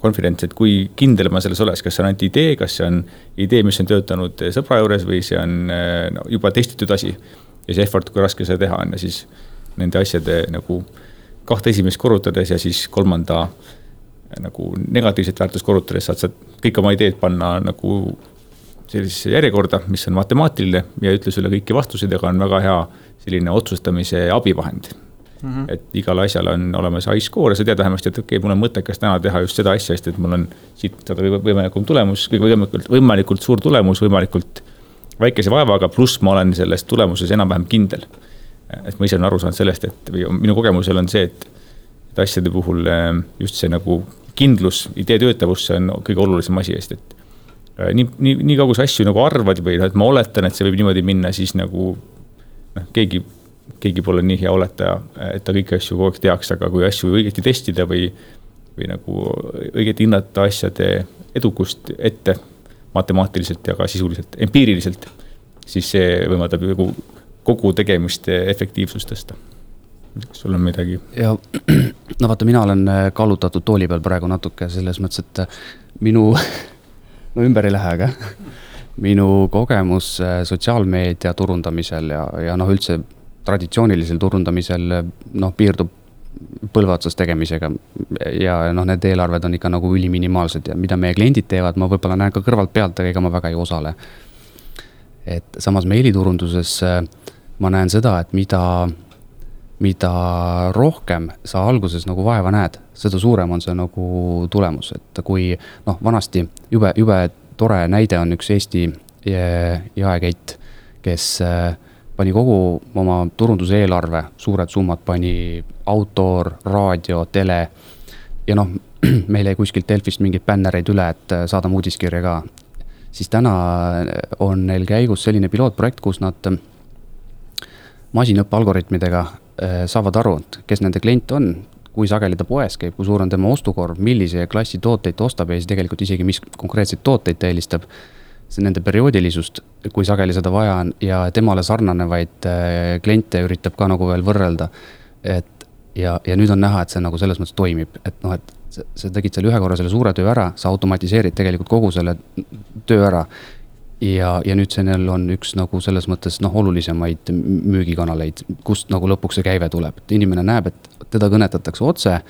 confidence, et kui kindel ma selles oleks, kas see on ainult idee, kas see on idee, mis on töötanud sõbra juures või see on juba testitud asi ja see effort, kui raske seda teha on ja siis nende asjade nagu 2 esimest korrutades ja siis 3. nagu negatiivset väärtust korrutades saad sa kõik oma ideed panna nagu sellisesse järjekorda, mis on matemaatiline ja ütle sulle kõiki vastuseid, aga on väga hea selline otsustamise abivahend. Et igal asjal on olemas high score ja sa tead vähemasti, et okei, mul on mõttekas täna teha just seda asja, sest et mul on siit võimalikult suur tulemus, võimalikult väikese vaevaga, pluss ma olen selles tulemuses enam-vähem kindel. Et ma ise olen aru saanud sellest, et minu kogemusel on see, et asjade puhul just see nagu kindlus, idee töötavus, see on kõige olulisem asi eest, et nii kaugus asju nagu arvad või et ma oletan, et see võib niimoodi minna, siis nagu keegi pole nii hea oletaja, et ta kõiki asju kogu aeg teaks, aga kui asju õigesti testida või nagu õigeti hinnata asjade edukust ette matemaatiliselt ja ka sisuliselt, empiiriliselt, siis see võimaldab ju kogu tegemiste efektiivsust tõsta. Kas sul on midagi? Ja, no vaata, mina olen kallutatud tooli peal praegu natuke selles mõttes, et minu, no ümber ei lähe, aga minu kogemus sotsiaalmeedia turundamisel ja üldse traditsioonilisel turundamisel piirdub põlvaotsas tegemisega ja need eelarved on ikka nagu üliminimaalsed ja mida meie kliendid teevad, ma võib-olla näen ka kõrvalt pealt, aga ega ma väga ei osale. Et samas meiliturunduses ma näen seda, et mida rohkem sa alguses nagu vaeva näed, seda suurem on see nagu tulemus, et kui vanasti jube tore näide on üks Eesti jaekett, kes pani kogu oma turunduse eelarve, suured summad pani autoor, raadio, tele ja meil ei kuskilt Delfist mingid bännereid üle, et saadame uudiskirja ka. Siis täna on neil käigus selline pilootprojekt, kus nad masinõppe algoritmidega saavad aru, kes nende klient on, kui sageli ta poes käib, kui suur on tema ostukorv, millise klassi tooteid ta ostab ja siis tegelikult isegi mis konkreetseid tooteid ta eelistab. See nende perioodilisust, kui sageli seda vaja on ja temale sarnanevaid kliente üritab ka nagu veel võrrelda. Ja nüüd on näha, et see nagu selles mõttes toimib, et sa tegid selle ühe korra selle suure töö ära, sa automatiseerid tegelikult kogu selle töö ära ja nüüd see neil on üks nagu selles mõttes olulisemaid müügikanaleid, kust nagu lõpuks see käive tuleb. Et inimene näeb, et teda kõnetatakse otse,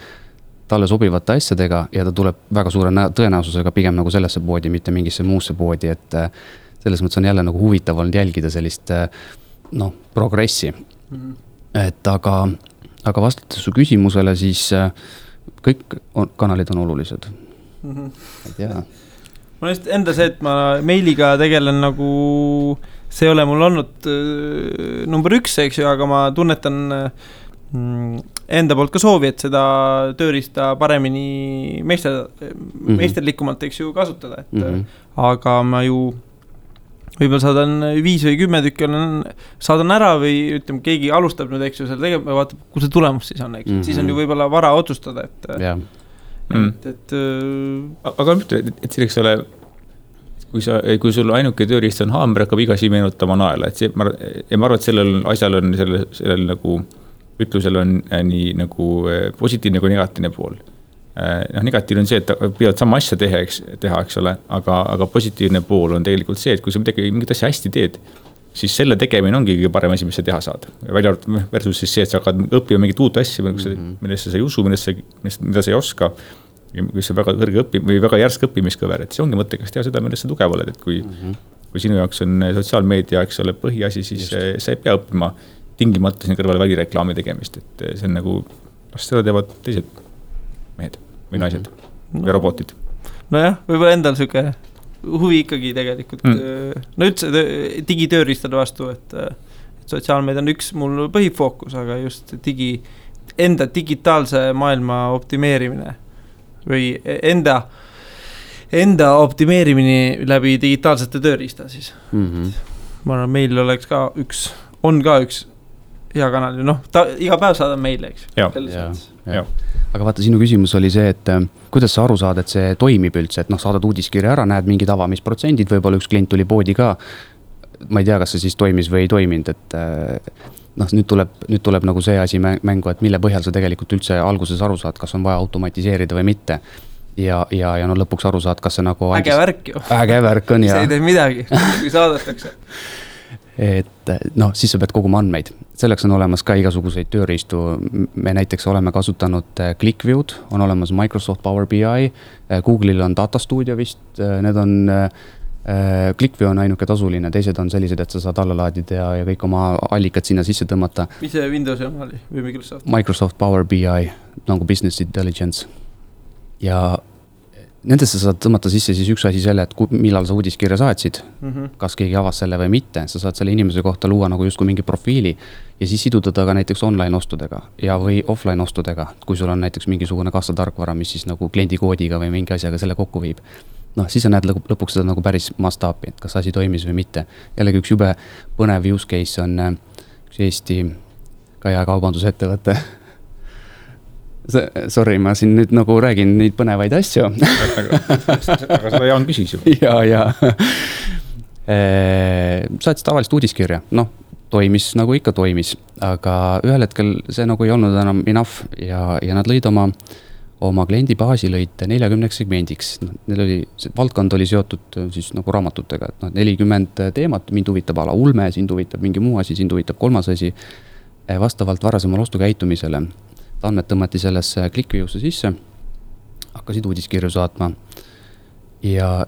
talle sobivate asjadega ja ta tuleb väga suure tõenäosusega pigem nagu sellesse poodi, mitte mingisse muusse poodi, et selles mõttes on jälle nagu huvitav olnud jälgida sellist progressi. Et aga vastates su küsimusele, siis kõik kanalid on olulised. Et jaa. Ma just enda see, et ma meiliga tegelen nagu, see ei ole mul olnud number 1, eks ju, aga ma tunnetan enda poolt ka soovi, et seda tööriista paremini meisterlikumalt, eks ju, kasutada. Aga ma ju võib-olla saadan 5 või 10 tükki saadan ära või ütleme, keegi alustab nüüd, eks ju, selle tegema ja vaatab, kus see tulemus siis on, eks ju. Siis on ju võib-olla vara otsustada, aga et selleks ole, kui sul ainuke tööriist on haamber, hakkab igasi meenutama naela, et ma arvan, et sellel asjal on sellel nagu ütlusel on nii nagu positiivne kui negatiivne pool. Negatiivne on see, et pidavad sama asja teha, eks ole, aga positiivne pool on tegelikult see, et kui sa mingit asja hästi teed, siis selle tegemine ongi kõige parem asi, mis sa teha saad. Välja versus siis see, et sa hakkad õppima mingit uut asja, millesse sa ei usu, mida sa ei oska, mis on väga kõrge või väga järsk õppimiskõver, et see ongi mõttekas teha seda, millesse sa tugev oled, et kui sinu jaoks on sotsiaalmeedia, eks ole, põhiasi, siis sa ei pea õppima tingimata siin kõrvale välireklaami tegemist, et see on nagu, seda teevad teised mehed või naised või robotid. Nojah, võib-olla endal süke huvi ikkagi tegelikult. No üldse digitööristade vastu, et sotsiaalmeedia on üks mul põhifookus, aga just enda digitaalse maailma optimeerimine või enda optimeerimine läbi digitaalsete tööriista siis. Ma arvan, meil oleks ka üks hea kanal, iga päev saadab meile, eks. Aga vaata, sinu küsimus oli see, et kuidas sa aru saad, et see toimib üldse, et saadad uudiskirja ära, näed mingid avamisprotsendid, võib-olla üks klient tuli poodi ka, ma ei tea, kas see siis toimis või ei toiminud, et nüüd tuleb nagu see asi mängu, et mille põhjal sa tegelikult üldse alguses aru saad, kas on vaja automatiseerida või mitte. Ja lõpuks aru saad, kas see nagu äge värk ju. Äge värk on, see ei tee midagi, kui saadetakse. et noh, siis sa pead koguma andmeid. Selleks on olemas ka igasuguseid tööriistu. Me näiteks oleme kasutanud ClickView'd, on olemas Microsoft Power BI, Google'il on Data Studio vist, need on, ClickView on ainuke tasuline, teised on sellised, et sa saad alla laadida ja kõik oma allikad sinna sisse tõmmata. Mis see Windowsi oma oli või Microsoft? Microsoft Power BI, nagu Business Intelligence. Ja nendesse saad tõmmata sisse siis üks asi selle, et millal sa uudiskirja saatsid, kas keegi avas selle või mitte, sa saad selle inimese kohta luua nagu justkui mingi profiili ja siis siduda ta ka näiteks online ostudega ja või offline ostudega, kui sul on näiteks mingisugune kassatarkvara, mis siis nagu kliendikoodiga või mingi asjaga selle kokku viib. Noh, siis sa näed lõpuks seda nagu päris mastaapi, et kas asi toimis või mitte. Jällegi üks jube põnev use case on üks Eesti ka jaekaubandusettevõte. Sorry, ma siin nüüd nagu räägin neid põnevaid asju. Aga seda Jaan küsis ju. Ja. Saatis tavalist uudiskirja. Noh, toimis nagu ikka toimis. Aga ühel hetkel see nagu ei olnud enam enough ja nad lõid oma kliendibaasi lõid 40 segmendiks. Neil oli, see valdkond oli seotud siis nagu raamatutega. Et 40 teemat, mind huvitab ala ulme, sind huvitab mingi muu asi, sind huvitab kolmas asi. Vastavalt varasemal ostukäitumisele. Andmed tõmmati sellesse ClickView'sse sisse, hakkasid uudiskirju saatma ja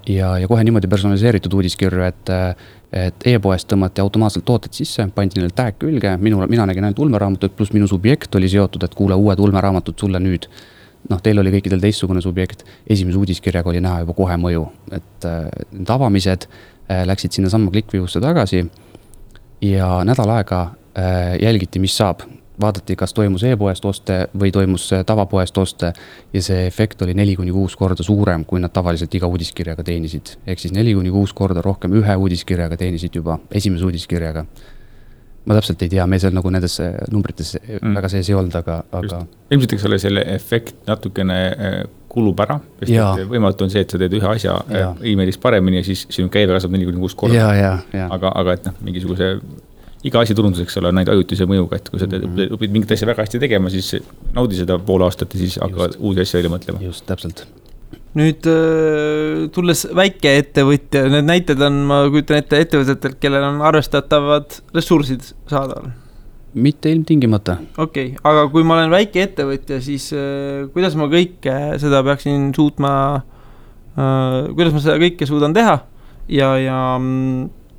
kohe niimoodi personaliseeritud uudiskirju, et e-poest tõmmati automaatselt tooted sisse, pandi neil tag külge, mina nägin ainult ulmeraamatut, pluss minu subjekt oli seotud, et kuule uued ulmeraamatud sulle nüüd. Noh, teil oli kõikidel teistsugune subjekt, esimese uudiskirjaga oli näha juba kohe mõju, et need avamised läksid sinna samma ClickView'sse tagasi ja nädal aega jälgiti, mis saab. Vaadati, kas toimus e-poest oste või toimus tavapoest oste ja see efekt oli 4-6 korda suurem, kui nad tavaliselt iga uudiskirjaga teenisid. Ehk siis 4-6 korda rohkem ühe uudiskirjaga teenisid juba, esimese uudiskirjaga. Ma täpselt ei tea, me seal nagu nendes numbrites väga sees ei olnud, aga... Ilmselt eks selle efekt natukene kulub ära, sest võimalt on see, et sa teed ühe asja e-mailis paremini ja siis sinu käive kasvab 4-6 korda. Aga et mingisuguse... Iga asi turunduseks olla näid ajutise mõjuga, et kui sa õpid mingit asja väga hästi tegema, siis naudi seda pool aastat ja siis hakkavad uusi asja välja mõtlema. Just, täpselt. Nüüd tulles väike ettevõtja, need näited on, ma kujutan ette ettevõtetelt, kellel on arvestatavad ressursid saadaval. Mitte ilmtingimata. Okei, aga kui ma olen väike ettevõtja, siis kuidas ma kõike seda peaksin suutma, kuidas ma seda kõike suudan teha ja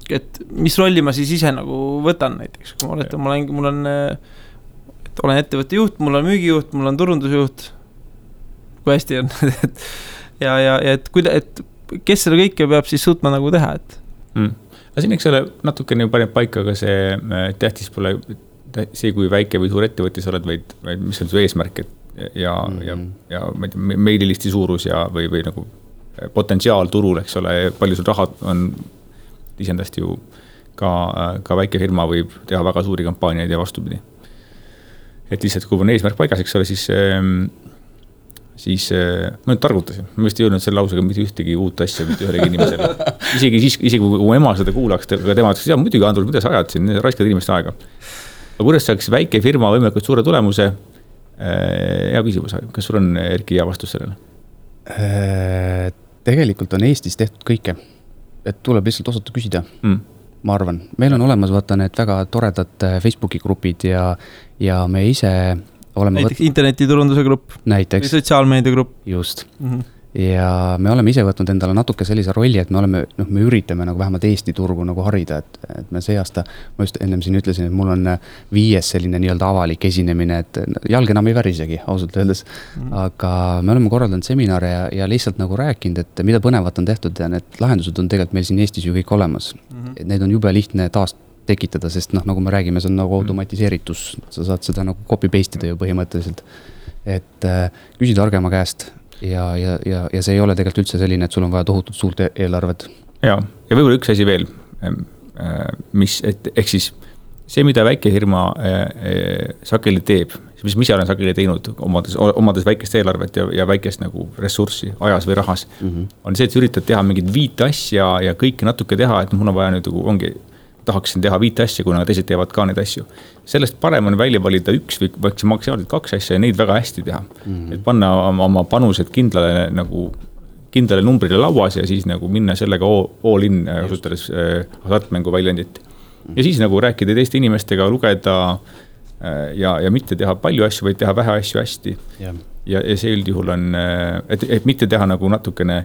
et mis rolli ma siis ise nagu võtan näiteks, kui ma olen ettevõtte juht, mul on müügijuht, mul on turundusjuht, kui hästi on, ja et kes selle kõike peab siis suutma nagu teha, et? Aga siin eks ole natukene paneb paika, aga see tähtis pole see, kui väike või suur ettevõttis oled, vaid mis on su eesmärk ja meililisti suurus või nagu potentsiaal turul, eks ole, palju sul raha on isendast ju ka väike firma võib teha väga suuri kampaaniaid ja vastupidi. Et lihtsalt, kui on eesmärk paigas, eks ole, siis ma nüüd targutasin. Ma vist ei öelnud selle lausega mitte ühtegi uut asja mitte ühelegi inimesele. Isegi kui ema seda kuulaks, aga tema ütles, muidugi Andrus, mida sa ajad siin, raiskad inimeste aega. Aga kuidas saaks väike firma võimalikult suure tulemuse? Hea küsimus, kas sul on Erki hea vastus sellele? Tegelikult on Eestis tehtud kõike. Et tuleb lihtsalt osata küsida, ma arvan. Meil on olemas vaata need väga toredad Facebooki grupid ja me ise oleme... Näiteks internetiturunduse grupp. Näiteks. Või sotsiaalmeedia grupp. Just. Ja me oleme ise võtnud endale natuke sellise rolli, et me üritame nagu vähemalt Eesti turgu nagu harida, et me see aasta, ma just ennem siin ütlesin, et mul on 5 selline nii-öelda avalik esinemine, et jalg enam ei värisegi, ausalt öeldes. Aga me oleme korraldanud seminare ja lihtsalt nagu rääkinud, et mida põnevat on tehtud ja need lahendused on tegelikult meil siin Eestis ju kõik olemas. Et neid on jube lihtne taas tekitada, sest nagu me räägime, see on nagu automatiseeritus, sa saad seda nagu copy-paste'ida ju põhimõtteliselt. Et küsi targema käest. Ja see ei ole tegelikult üldse selline, et sul on vaja tohutult suurt eelarvet. Ja võib-olla üks asi veel, ehk siis see, mida väike firma sageli teeb, mis ise olen sageli teinud, omades väikest eelarvet ja väikest nagu ressurssi ajas või rahas, on see, et üritad teha mingid 5 asja ja kõike natuke teha, et mul on vaja nüüd tahaksin teha 5 asja, kuna teised teevad ka neid asju. Sellest parem on välja valida 1 või maksimaalselt 2 asja ja neid väga hästi teha. Et panna oma panused kindlale numbrile lauas ja siis nagu minna sellega all in kasutades hasartmängu väljendit. Ja siis nagu rääkida teiste inimestega, lugeda ja mitte teha palju asju, vaid teha vähe asju hästi. Ja see üldjuhul on, et mitte teha nagu natukene,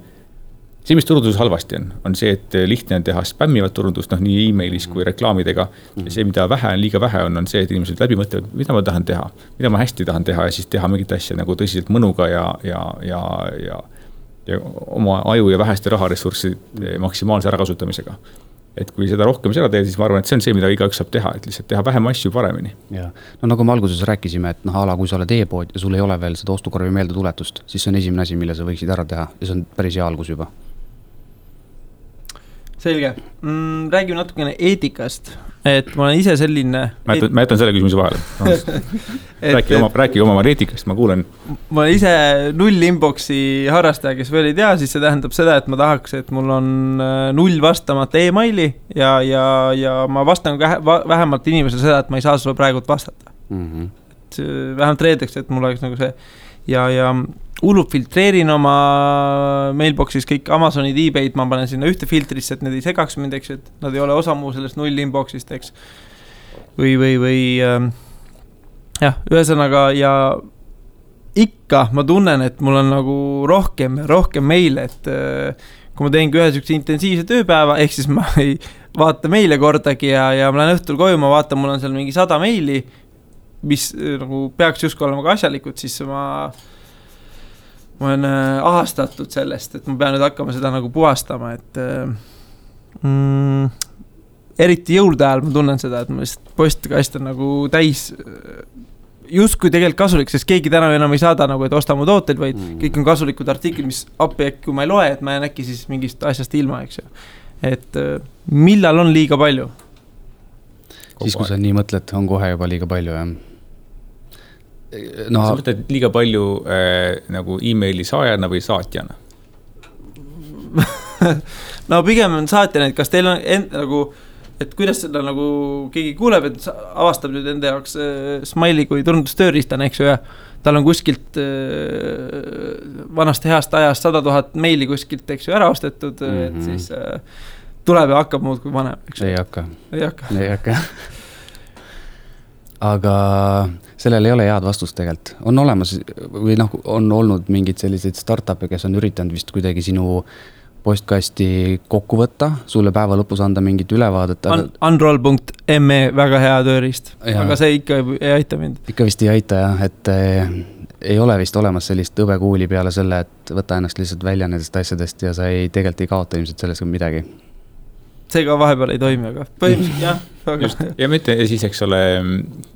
see, mis turunduses halvasti on see, et lihtne on teha spämmivat turundust, nii e-mailis kui reklaamidega. Ja see, mida liiga vähe on see, et inimesed läbi mõtlevad, mida ma tahan teha, mida ma hästi tahan teha ja siis teha mingit asja nagu tõsiselt mõnuga ja oma aju ja väheste raharessurssi maksimaalse ärakasutamisega. Et kui seda rohkem seda teed, siis ma arvan, et see on see, mida igaüks saab teha, et lihtsalt teha vähem asju paremini. Ja. No nagu me alguses rääkisime, et kui sa oled e-pood ja sul ei ole veel seda ostukorvi meeldetuletust, siis see on esimene asi, mille sa võiksid ära teha ja see on päris hea algus juba. Selge. Räägime natukene eetikast, et ma olen ise selline... Ma jätan selle küsimuse vahele. Räägi oma eetikast, ma kuulen. Ma olen ise null inboxi harrastaja, kes veel ei tea, siis see tähendab seda, et ma tahaks, et mul on null vastamata e-maili ja ma vastan vähemalt inimesele seda, et ma ei saa sulle praegu vastata. Et vähemalt reedeks, et mul oleks nagu see ja hullult filtreerin oma mailboxis kõik Amazonid, eBay'd, ma panen sinna ühte filtrisse, et need ei segaks mind, eks, et nad ei ole osa muu sellest null inboxist, eks. Või jah, ühesõnaga ja ikka ma tunnen, et mul on nagu rohkem meile, et kui ma teengi ühe sükse intensiivse tööpäeva, ehk siis ma ei vaata meile kordagi ja ma lähen õhtul koju, ma vaatan, mul on seal mingi 100 meili, mis nagu peaks justkui olema ka asjalikud, siis ma olen ahastatud sellest, et ma pean nüüd hakkama seda nagu puhastama, et eriti jõulude ajal ma tunnen seda, et ma lihtsalt postkast on nagu täis justkui tegelikult kasulik, sest keegi täna enam ei saada nagu, et osta mu tooteid, vaid kõik on kasulikud artiklid, mis appi äkki, kui ma ei loe, et ma jään äkki siis mingist asjast ilma, eks ju. Et millal on liiga palju? Siis kui sa nii mõtled, on kohe juba liiga palju, jah. No, sa mõtled liiga palju nagu e-maili saajana või saatjana? No pigem on saatjana, et kas teil on nagu, et kuidas seda nagu keegi kuuleb, et avastab nüüd enda jaoks Smiley kui turundustööriistane, eks ju, ja tal on kuskilt vanast heast ajast 100 000 meili kuskilt, eks ju, ära ostetud, et siis tuleb ja hakkab muud kui vanem, eks ju. Ei hakka. Aga sellel ei ole head vastust tegelikult. On olemas või on olnud mingid sellised startup'e, kes on üritanud vist kuidagi sinu postkasti kokku võtta, sulle päeva lõpus anda mingit ülevaadet. Unroll.me, väga hea tööriist, aga see ikka ei aita mind. Ikka vist ei aita, jah, et ei ole vist olemas sellist õbekuuli peale selle, et võta ennast lihtsalt välja nendest asjadest ja sa tegelikult ei kaota ilmselt sellest midagi. See ka vahepeal ei toimi, aga põhimõtteliselt jah. Just, ja mitte siis, eks ole,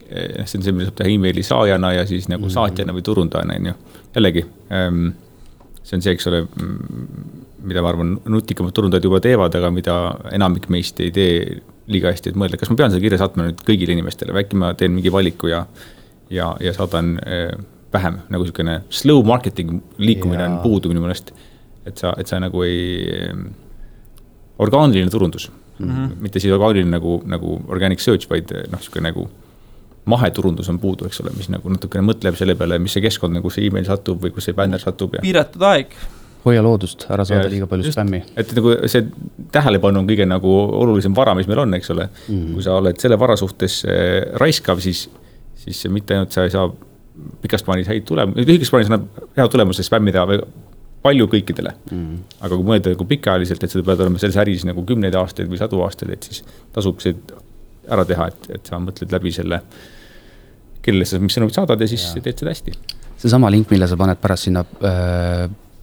see on see, mida saab teha e-maili saajana ja siis nagu saatjana või turundajana, jällegi, see on see, eks ole, mida ma arvan, nutikamad turundajad juba teevad, aga mida enamik meist ei tee liiga hästi, et mõelda, kas ma pean seda kirja saatma nüüd kõigile inimestele, või äkki ma teen mingi valiku ja saadan vähem, nagu selline slow marketing liikumine on puudu minu mõnest, et sa nagu ei... orgaaniline turundus, mitte siis orgaaniline nagu organic search, vaid nagu maheturundus on puudu, eks ole, mis nagu natukene mõtleb selle peale, mis see keskkond, nagu see e-mail satub või kus see banner satub. Ja... Piiratud aeg. Hoia loodust, ära saada liiga palju spämmi. Et nagu see tähelepanu on kõige nagu olulisem vara, mis meil on, eks ole. Kui sa oled selle vara suhtes raiskav, siis mitte ainult sa ei saa pikast plaanis häid tulemusi, lühikest plaanis annab hea tulemusi spämmida palju kõikidele. Aga kui mõelda nagu pikaajaliselt, et seda pead olema selles äris nagu 10 aastaid või 100 aastaid, et siis tasub see ära teha, et sa mõtled läbi selle, kellele sa mis sõnumid saadad ja siis teed seda hästi. See sama link, mille sa paned pärast sinna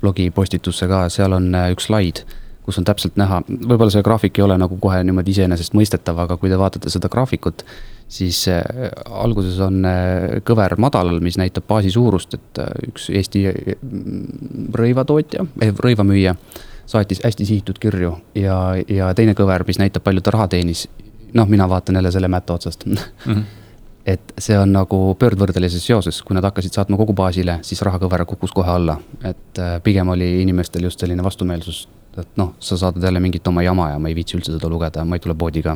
blogi postitusse ka, seal on üks slaid, kus on täpselt näha, võib-olla see graafik ei ole nagu kohe niimoodi iseenesest mõistetav, aga kui te vaatate seda graafikut, siis alguses on kõver madalal, mis näitab baasi suurust, et üks Eesti rõivamüüja saatis hästi sihitud kirju ja teine kõver, mis näitab palju ta raha teenis. Mina vaatan jälle selle mätta otsast. Et see on nagu pöördvõrdelises seoses, kui nad hakkasid saatma kogu baasile, siis rahakõver kukkus kohe alla. Et pigem oli inimestel just selline vastumeelsus, et sa saadad jälle mingit oma jama ja ma ei viitsi üldse seda lugeda, ma ei tule poodi ka.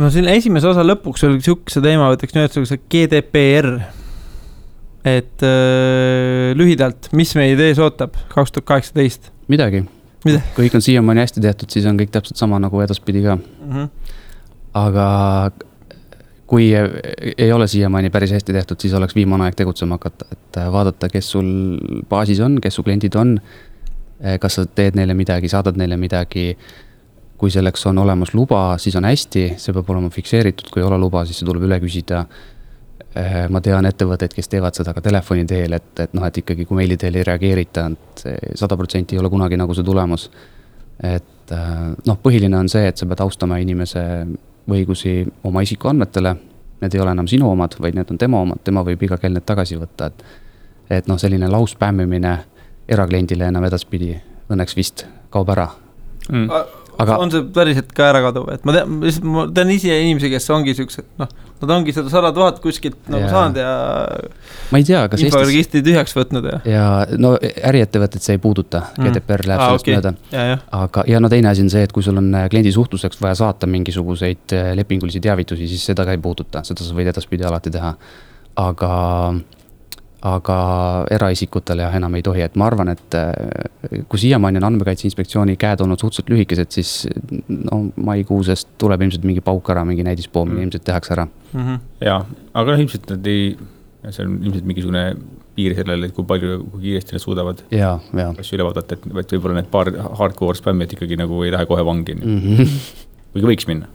No siin esimese osa lõpuks oli sihukese teema, võtaks nüüd see GDPR. Et lühidalt, mis meie idees ootab 2018? Midagi. kõik on siiamaani hästi tehtud, siis on kõik täpselt sama nagu edaspidi ka. Aga kui ei ole siiamaani päris hästi tehtud, siis oleks viimane aeg tegutsema hakata, et vaadata, kes sul baasis on, kes su kliendid on, kas sa teed neile midagi, saadad neile midagi. Kui selleks on olemas luba, siis on hästi, see peab olema fikseeritud, kui ei ole luba, siis see tuleb üle küsida. Ma tean ettevõtteid, kes teevad seda ka telefoni teel, et ikkagi kui meili teel ei reageerita, et 100% ei ole kunagi nagu see tulemus. Et põhiline on see, et sa pead austama inimese õigusi oma isikuandmetele, need ei ole enam sinu omad, vaid need on tema omad, tema võib iga kell need tagasi võtta, et selline lauspämmimine erakliendile enam edaspidi õnneks vist kaob ära. Aga on see päriselt ka ära kaduv, et ma tean ise inimesi, kes ongi siuksed, nad ongi seda 100 000 kuskilt nagu saanud ja ma ei tea, kas inforegistri tühjaks võtnud ja äriettevõtted see ei puuduta, GDPR läheb sellest mööda. Aga teine asi on see, et kui sul on kliendi suhtluseks vaja saata mingisuguseid lepingulisi teavitusi, siis seda ka ei puuduta, seda sa võid edaspidi alati teha. Aga eraisikutele enam ei tohi, et ma arvan, et kui siiamaani on Andmekaitse Inspektsiooni käed olnud suhteliselt lühikesed, siis maikuusest tuleb ilmselt mingi pauk ära, mingi näidispoomine ilmselt tehakse ära. Jaa, aga ilmselt nad see on ilmselt mingisugune piir sellele, et kui kiiresti nad suudavad asju üle vaadata, et võib-olla need paar hardcore spämmid ikkagi nagu ei lähe kohe vangi. Kuigi võiks minna.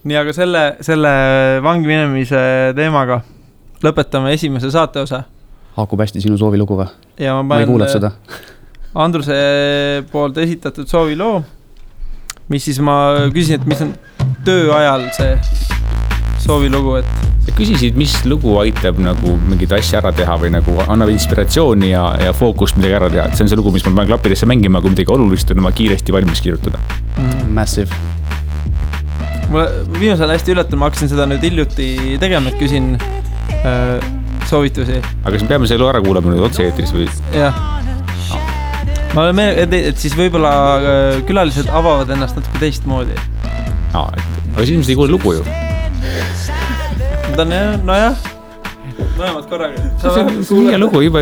Nii, aga selle vangi minemise teemaga lõpetame esimese saate osa. Haakub hästi sinu soovilugu või? Ja ma ei kuulnud seda. Andruse poolt esitatud sooviloo, mis siis ma küsin, et mis on töö ajal see soovilugu, et... Sa küsisid, mis lugu aitab nagu mingit asja ära teha või nagu annab inspiratsiooni ja fookust midagi ära teha. See on see lugu, mis ma panen klappidesse mängima, kui midagi olulist on oma kiiresti valmis kirjutada. Massive. Mulle viimasel hästi üllatul, ma hakkasin seda nüüd hiljuti tegema, et küsin soovitusi. Aga kas me peame selle ära kuulama nüüd otse eetris või? Jah. Ma olen et siis võib-olla külalised avavad ennast natuke teistmoodi. Aga siis ilmselt ei kuule lugu ju. Nojah. Mõlemad korraga. See on hea lugu, juba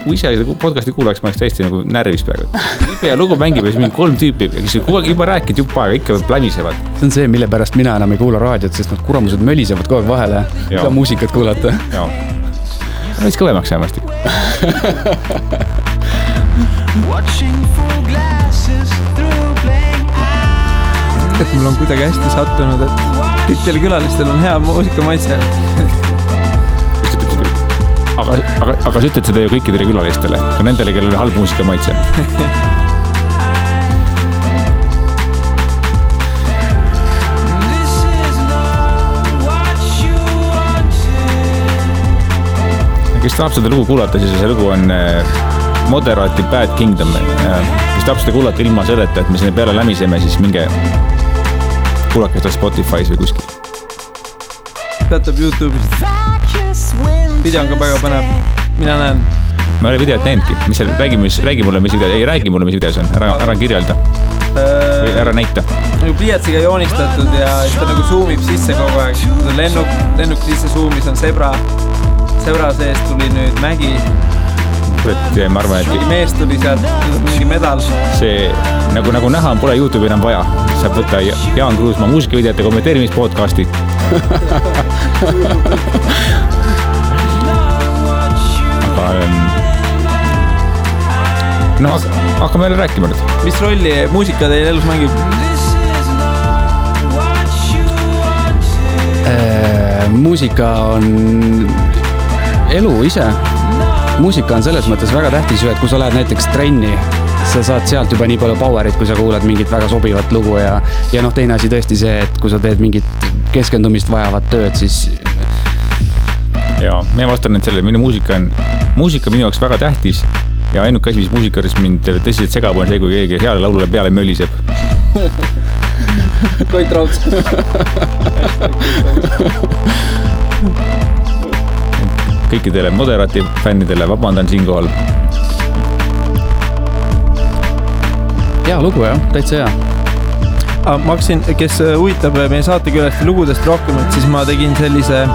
kui ise podcasti kuulaks, ma oleks täiesti nagu närvis praegu. Ja lugu mängib ja siis mingi 3 tüüpi, kes juba rääkid juba aega, ikka planisevad. See on see, mille pärast mina enam ei kuula raadiot, sest nad kuramused mölisevad kogu aeg vahele. Ka muusikat kuulata. Jaa. Võis kõvemaks jäämast. Et mul on kuidagi hästi sattunud, et kõikidel külalistel on hea muusikamaitse. Aga sa ütled seda ju kõikidele külalistele, ka nendele, kellel on halb muusikamaitse. Kes tahab seda lugu kuulata, siis see lugu on Moderati Bad Kingdom. Kes tahab seda kuulata ilma selleta, et me sinne peale lämiseme, siis minge kuulake seda Spotify's või kuskil. Peatab YouTube'ist. Video on ka väga põnev. Mina näen. Ma olen videot näinudki. Mis seal, räägi mulle, mis videos, ei räägi mulle, mis videos on. Ära kirjelda. Või ära näita. Nagu pliiatsiga joonistatud ja ta nagu zoomib sisse kogu aeg. Lennuk sisse zoomis on sebra. Sebra sees tuli nüüd mägi. Ma arvan, et... Mees tuli sealt, mingi medal. See, nagu näha, pole YouTube'i enam vaja. Saab võtta Jaan Kruusmaa muusikavideote kommenteerimispodcasti. No, hakkame jälle rääkima nüüd. Mis rolli muusika teil elus mängib? Muusika on elu ise. Muusika on selles mõttes väga tähtis, et kui sa lähed näiteks trenni, sa saad sealt juba nii palju powerit, kui sa kuulad mingit väga sobivat lugu ja teine asi tõesti see, et kui sa teed mingit keskendumist vajavat tööd, siis... Jaa, ma vastan nüüd selle, minu muusika minu jaoks väga tähtis ja ainuke asi, mis muusikaris mind tõsiselt segab on see, kui keegi heale laulule peale möliseb. Koit Rauds. Kõikidele Moderati fännidele vabandan siinkohal. Hea lugu jah, täitsa hea. Ma hakkasin, kes huvitab meie saatekülast lugudest rohkem, et siis ma tegin sellise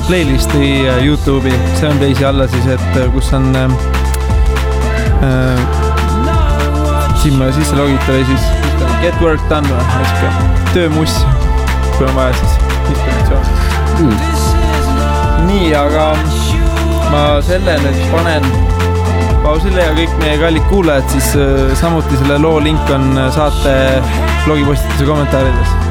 playlisti YouTube'i, see on teisi alla siis, et kus on siin ma sisse logita või siis get work done või, töömuss, kui on vaja siis inspiratsiooni. Nii, aga ma selle nüüd panen pausile ja kõik meie kallid kuulajad siis samuti selle loo link on saate blogipostituse kommentaarides.